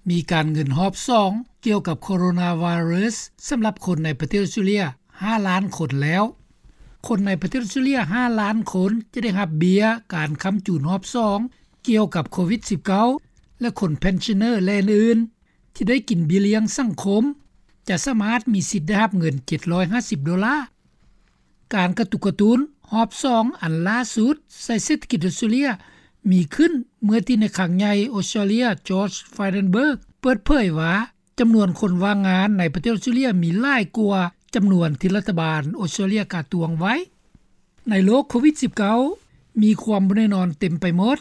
ມີການເງິນຮອບສອງ ກ່ຽວກັບໂຄໂຣນາໄວຣັສ ສຳລັບຄົນໃນປະເທດອອສເຕຣເລັຽ ຫ້າລ້ານຄົນແລ້ວ. ຄົນໃນປະເທດອອສເຕຣເລັຽ ຫ້າລ້ານຄົນ ຈະໄດ້ຮັບເບັ້ຍການຄ້ຳຈູນຮອບສອງ ກ່ຽວກັບໂຄວິດ-19 ແລະ ຄົນ pensioner ແລະອື່ນໆ ທີ່ໄດ້ກິນເບັ້ຍລ້ຽງສັງຄົມ ຈະສາມາດມີສິດໄດ້ຮັບເງິນ ເຈັດຮ້ອຍຫ້າສິບໂດລາ. ການກະຕຸກກະຕຸ້ນຮອບສອງອັນຫຼ້າສຸດໃສ່ເສດຖະກິດອອສເຕຣເລັຽ ມີຂຶ້ນເມື່ອທີ່ນາຍຄັງໃຫຍ່ອອສເຕຣເລັຽ George Frydenberg ເປີດເຜີຍວ່າ ຈຳນວນຄົນວ່າງງານໃນປະເທດອອສເຕຣເລັຽ ມີຫຼາຍກວ່າຈຳນວນທີ່ລັດຖະບານອອສເຕຣເລັຽກະຕວງໄວ້. ໃນໂລກໂຄວິດ-19 ມີຄວາມບໍ່ແນ່ນອນເຕັມໄປໝົດ,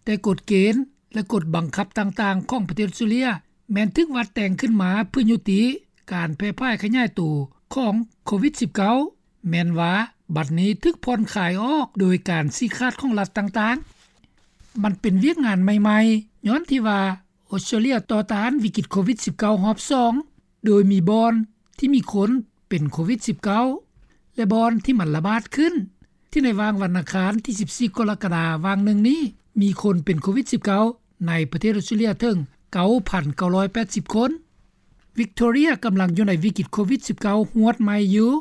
ແຕ່ກົດເກນ ແລະ ກົດບັງຄັບຕ່າງໆຂອງປະເທດອອສເຕຣເລັຽ ແມ່ນຖືກວັດແຕ່ງຂຶ້ນມາເພື່ອຍຸຕິການແຜ່ຜາຍຂະຫຍາຍໂຕຂອງໂຄວິດ-19 ແມ່ນວ່າບັດນີ້ຖືກຜ່ອນຄາຍອອກໂດຍການຊີ້ຂາດຂອງລັດຕ່າງໆ. ມັນເປັນວຽກງານໃໝ່ໆ ຍ້ອນທີ່ວ່າອອສເຕຣເລັຽຕໍ່ຕ້ານວິກິດໂຄວິດ-19 ຮອບສອງ ໂດຍມີບ່ອນທີ່ມີຄົນເປັນໂຄວິດ-19 ແລະ ບ່ອນທີ່ມັນລະບາດຂຶ້ນ ທີ່ໃນຫວ່າງວັນອັງຄານທີສິບສີ່ ກໍລະກະດາຫວ່າງໜຶ່ງນີ້ ມີຄົນເປັນໂຄວິດ-19 ໃນປະເທດອອສເຕຣເລັຽເຖິງ ເກົ້າພັນເກົ້າຮ້ອຍແປດສິບຄົນ. ວິກໂຕເຣຍກຳລັງຢູ່ໃນວິກິດໂຄວິດ-19 ຮວດໃໝ່ຢູ່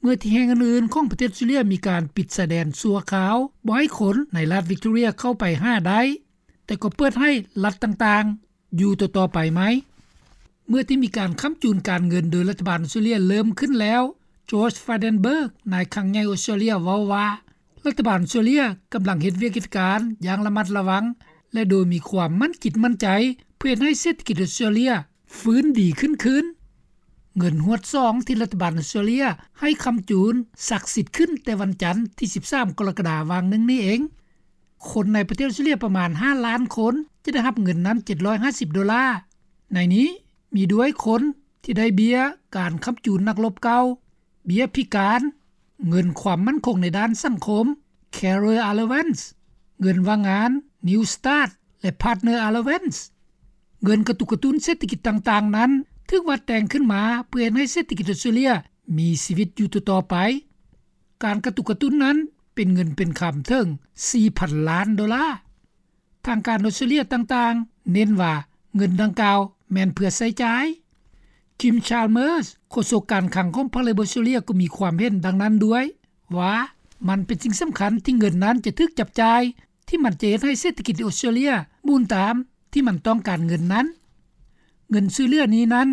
ເມື່ອທີ່ແຫ່ງອື່ນໆຂອງປະເທດອອສເຕຣເລັຽມີການປິດຊາຍແດນຊົ່ວຄາວ ບໍ່ໃຫ້ຄົນໃນລັດວິກໂຕເຣຍເຂົ້າໄປຫາໄດ້, ແຕ່ກໍເປີດໃຫ້ລັດຕ່າງໆຢູ່ຕໍ່ໆໄປໃໝ່. ເມື່ອທີ່ມີການຄ້ຳຈູນການເງິນໂດຍລັດຖະບານອອສເຕຣເລັຽເລີ່ມຂຶ້ນແລ້ວ, George Frydenberg ນາຍຄັງໃຫຍ່ອອສເຕຣເລັຽເວົ້າວ່າ ລັດຖະບານອອສເຕຣເລັຽກຳລັງເຮັດວຽກເຮັດການຢ່າງລະມັດລະວັງ ແລະ ໂດຍມີຄວາມໝັ້ນຈິດໝັ້ນໃຈ ເພື່ອເຮັດໃຫ້ເສດຖະກິດອອສເຕຣເລັຽຟື້ນດີຂຶ້ນຄືນ. ເງິນຮວດສອງທີ່ລັດຖະບານອອສເຕຣເລັຽໃຫ້ຄ້ຳຈູນສັກສິດຂຶ້ນແຕ່ວັນຈັນທີສິບສາມ ກໍລະກະດາຫວ່າງໜຶ່ງນີ້ເອງ. ຄົນໃນປະເທດອອສເຕຣເລັຽປະມານຫ້າລ້ານຄົນ ຈະໄດ້ຮັບເງິນນັ້ນເຈັດຮ້ອຍຫ້າສິບໂດລາ. ໃນນີ້ມີດ້ວຍຄົນທີ່ໄດ້ເບັ້ຍການຄ້ຳຈູນນັກລົບເກົ່າ, ເບັ້ຍພິການ, ເງິນຄວາມໝັ້ນຄົງໃນດ້ານສັງຄົມ, Carer Allowance, ເງິນວ່າງງານ, New Start ແລະ Partner Allowance. ເງິນກະຕຸກກະຕຸ້ນເສດຖະກິດຕ່າງໆນັ້ນ ຖືກວັດແຕ່ງຂຶ້ນມາເພື່ອເຮັດໃຫ້ເສດຖະກິດອອສເຕຣເລັຽມີຊີວິດຢູ່ຕໍ່ໆໄປ. ການກະຕຸກກະຕຸ້ນນັ້ນເປັນເງິນເປັນຄຳເຖິງສີ່ພັນລ້ານໂດລາ. ທາງການອອສເຕຣເລັຽຕ່າງໆເນັ້ນວ່າເງິນດັ່ງກ່າວແມ່ນເພື່ອໃຊ້ຈ່າຍ. Kim Chalmers ໂຄສົກການຄັງຂອງພັກເລເບີອອສເຕຣເລັຽກໍມີຄວາມເຫັນດັ່ງນັ້ນດ້ວຍ ວ່າມັນເປັນສິ່ງສຳຄັນທີ່ເງິນນັ້ນຈະຖືກຈັບຈ່າຍ ທີ່ມັນຈະເຮັດໃຫ້ເສດຖະກິດອອສເຕຣເລັຽໝູນຕາມທີ່ມັນຕ້ອງການເງິນນັ້ນ. ເງິນຊ່ວຍເຫຼືອນີ້ນັ້ນ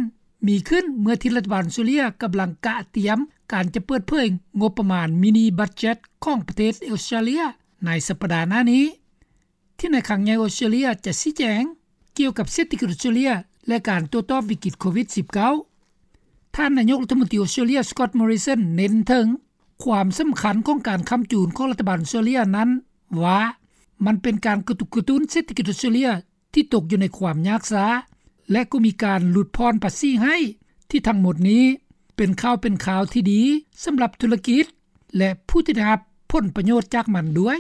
ມີຂຶ້ນເມື່ອທີ່ລັດຖະບານອອສເຕຣເລັຽກຳລັງກະຕຽມການຈະເປີດເຜີຍງົບປະມານມິນິບັດເຈັດຂອງປະເທດອອສເຕຣເລັຽໃນສັບປະດາໜ້ານີ້ ທີ່ນາຍຄັງໃຫຍ່ອອສເຕຣເລັຽຈະຊີ້ແຈງກ່ຽວກັບເສດຖະກິດອອສເຕຣເລັຽ ແລະ ການໂຕ້ຕອບວິກິດໂຄວິດ-19. ທ່ານນາຍົກລັດຖະມົນຕີອອສເຕຣເລັຽ Scott Morrison ເນັ້ນເຖິງຄວາມສຳຄັນຂອງການຄ້ຳຈູນຂອງລັດຖະບານອອສເຕຣເລັຽນັ້ນວ່າ ມັນເປັນການກະຕຸກກະຕຸ້ນເສດຖະກິດອອສເຕຣເລັຽທີ່ຕົກຢູ່ໃນຄວາມຍາກຊ້າ ແລະ ກໍມີການຫຼຸດຜ່ອນພາສີໃຫ້ ທີ່ທັງໝົດນີ້ເປັນຂ່າວເປັນຄາວທີ່ດີສຳລັບທຸລະກິດ ແລະ ຜູ້ທີ່ໄດ້ຮັບຜົນປະໂຫຍດຈາກມັນດ້ວຍ.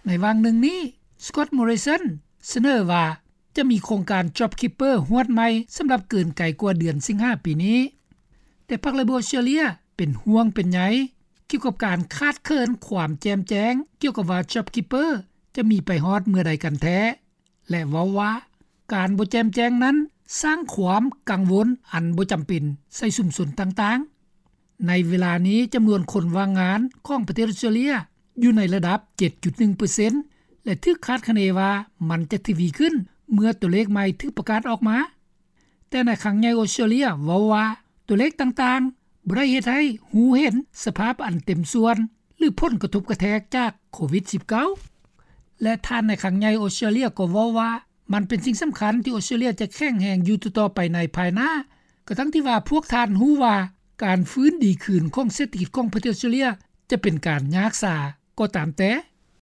ໃນຫວ່າງໜຶ່ງນີ້ Scott Morrison ສະເໜີວ່າຈະມີໂຄງການ JobKeeper ຮວດໃໝ່ສຳລັບເກີນໄກກວ່າເດືອນສິງຫາປີນີ້, ແຕ່ພັກເລເບີອອສເຕຣເລັຽເປັນຫ່ວງເປັນໃຍກ່ຽວກັບການຂາດເຂີນຄວາມແຈ່ມແຈ້ງກ່ຽວກັບວ່າ JobKeeper ຈະມີໄປຮອດເມື່ອໃດກັນແທ້ ແລະ ເວົ້າວ່າ ການບໍ່ແຈ່ມແຈ້ງນັ້ນສ້າງຄວາມກັງວົນອັນບໍ່ຈຳເປັນໃສ່ຊຸມຊົນຕ່າງໆ. ໃນເວລານີ້ຈຳນວນຄົນວ່າງງານຂອງປະເທດອອສເຕຣເລັຽຢູ່ໃນລະດັບເຈັດຈຸດໜຶ່ງເປີເຊັນ ແລະ ຖືກຄາດຄະເນວ່າມັນຈະທະວີຂຶ້ນເມື່ອຕົວເລກໃໝ່ຖືກປະກາດອອກມາ. ແຕ່ນາຍຄັງໃຫຍ່ອອສເຕຣເລັຽເວົ້າວ່າ ຕົວເລກຕ່າງໆບໍ່ໄດ້ເຮັດໃຫ້ຮູ້ເຫັນສະພາບອັນເຕັມສ່ວນ ຫຼື ຜົນກະທົບກະແທກຈາກໂຄວິດ-19 ແລະ ທ່ານນາຍຄັງໃຫຍ່ອອສເຕຣເລັຽກໍເວົ້າວ່າ ມັນເປັນສິ່ງສຳຄັນທີ່ອອສເຕຣເລັຽຈະແຂງແຮງຢູ່ຕໍ່ໆໄປໃນພາຍໜ້າ, ກະທັ່ງທີ່ວ່າພວກທ່ານຮູ້ວ່າການຟື້ນດີຄືນຂອງເສດຖະກິດຂອງປະເທດອອສເຕຣເລັຽຈະເປັນການຍາກຊ້າກໍຕາມແຕ່.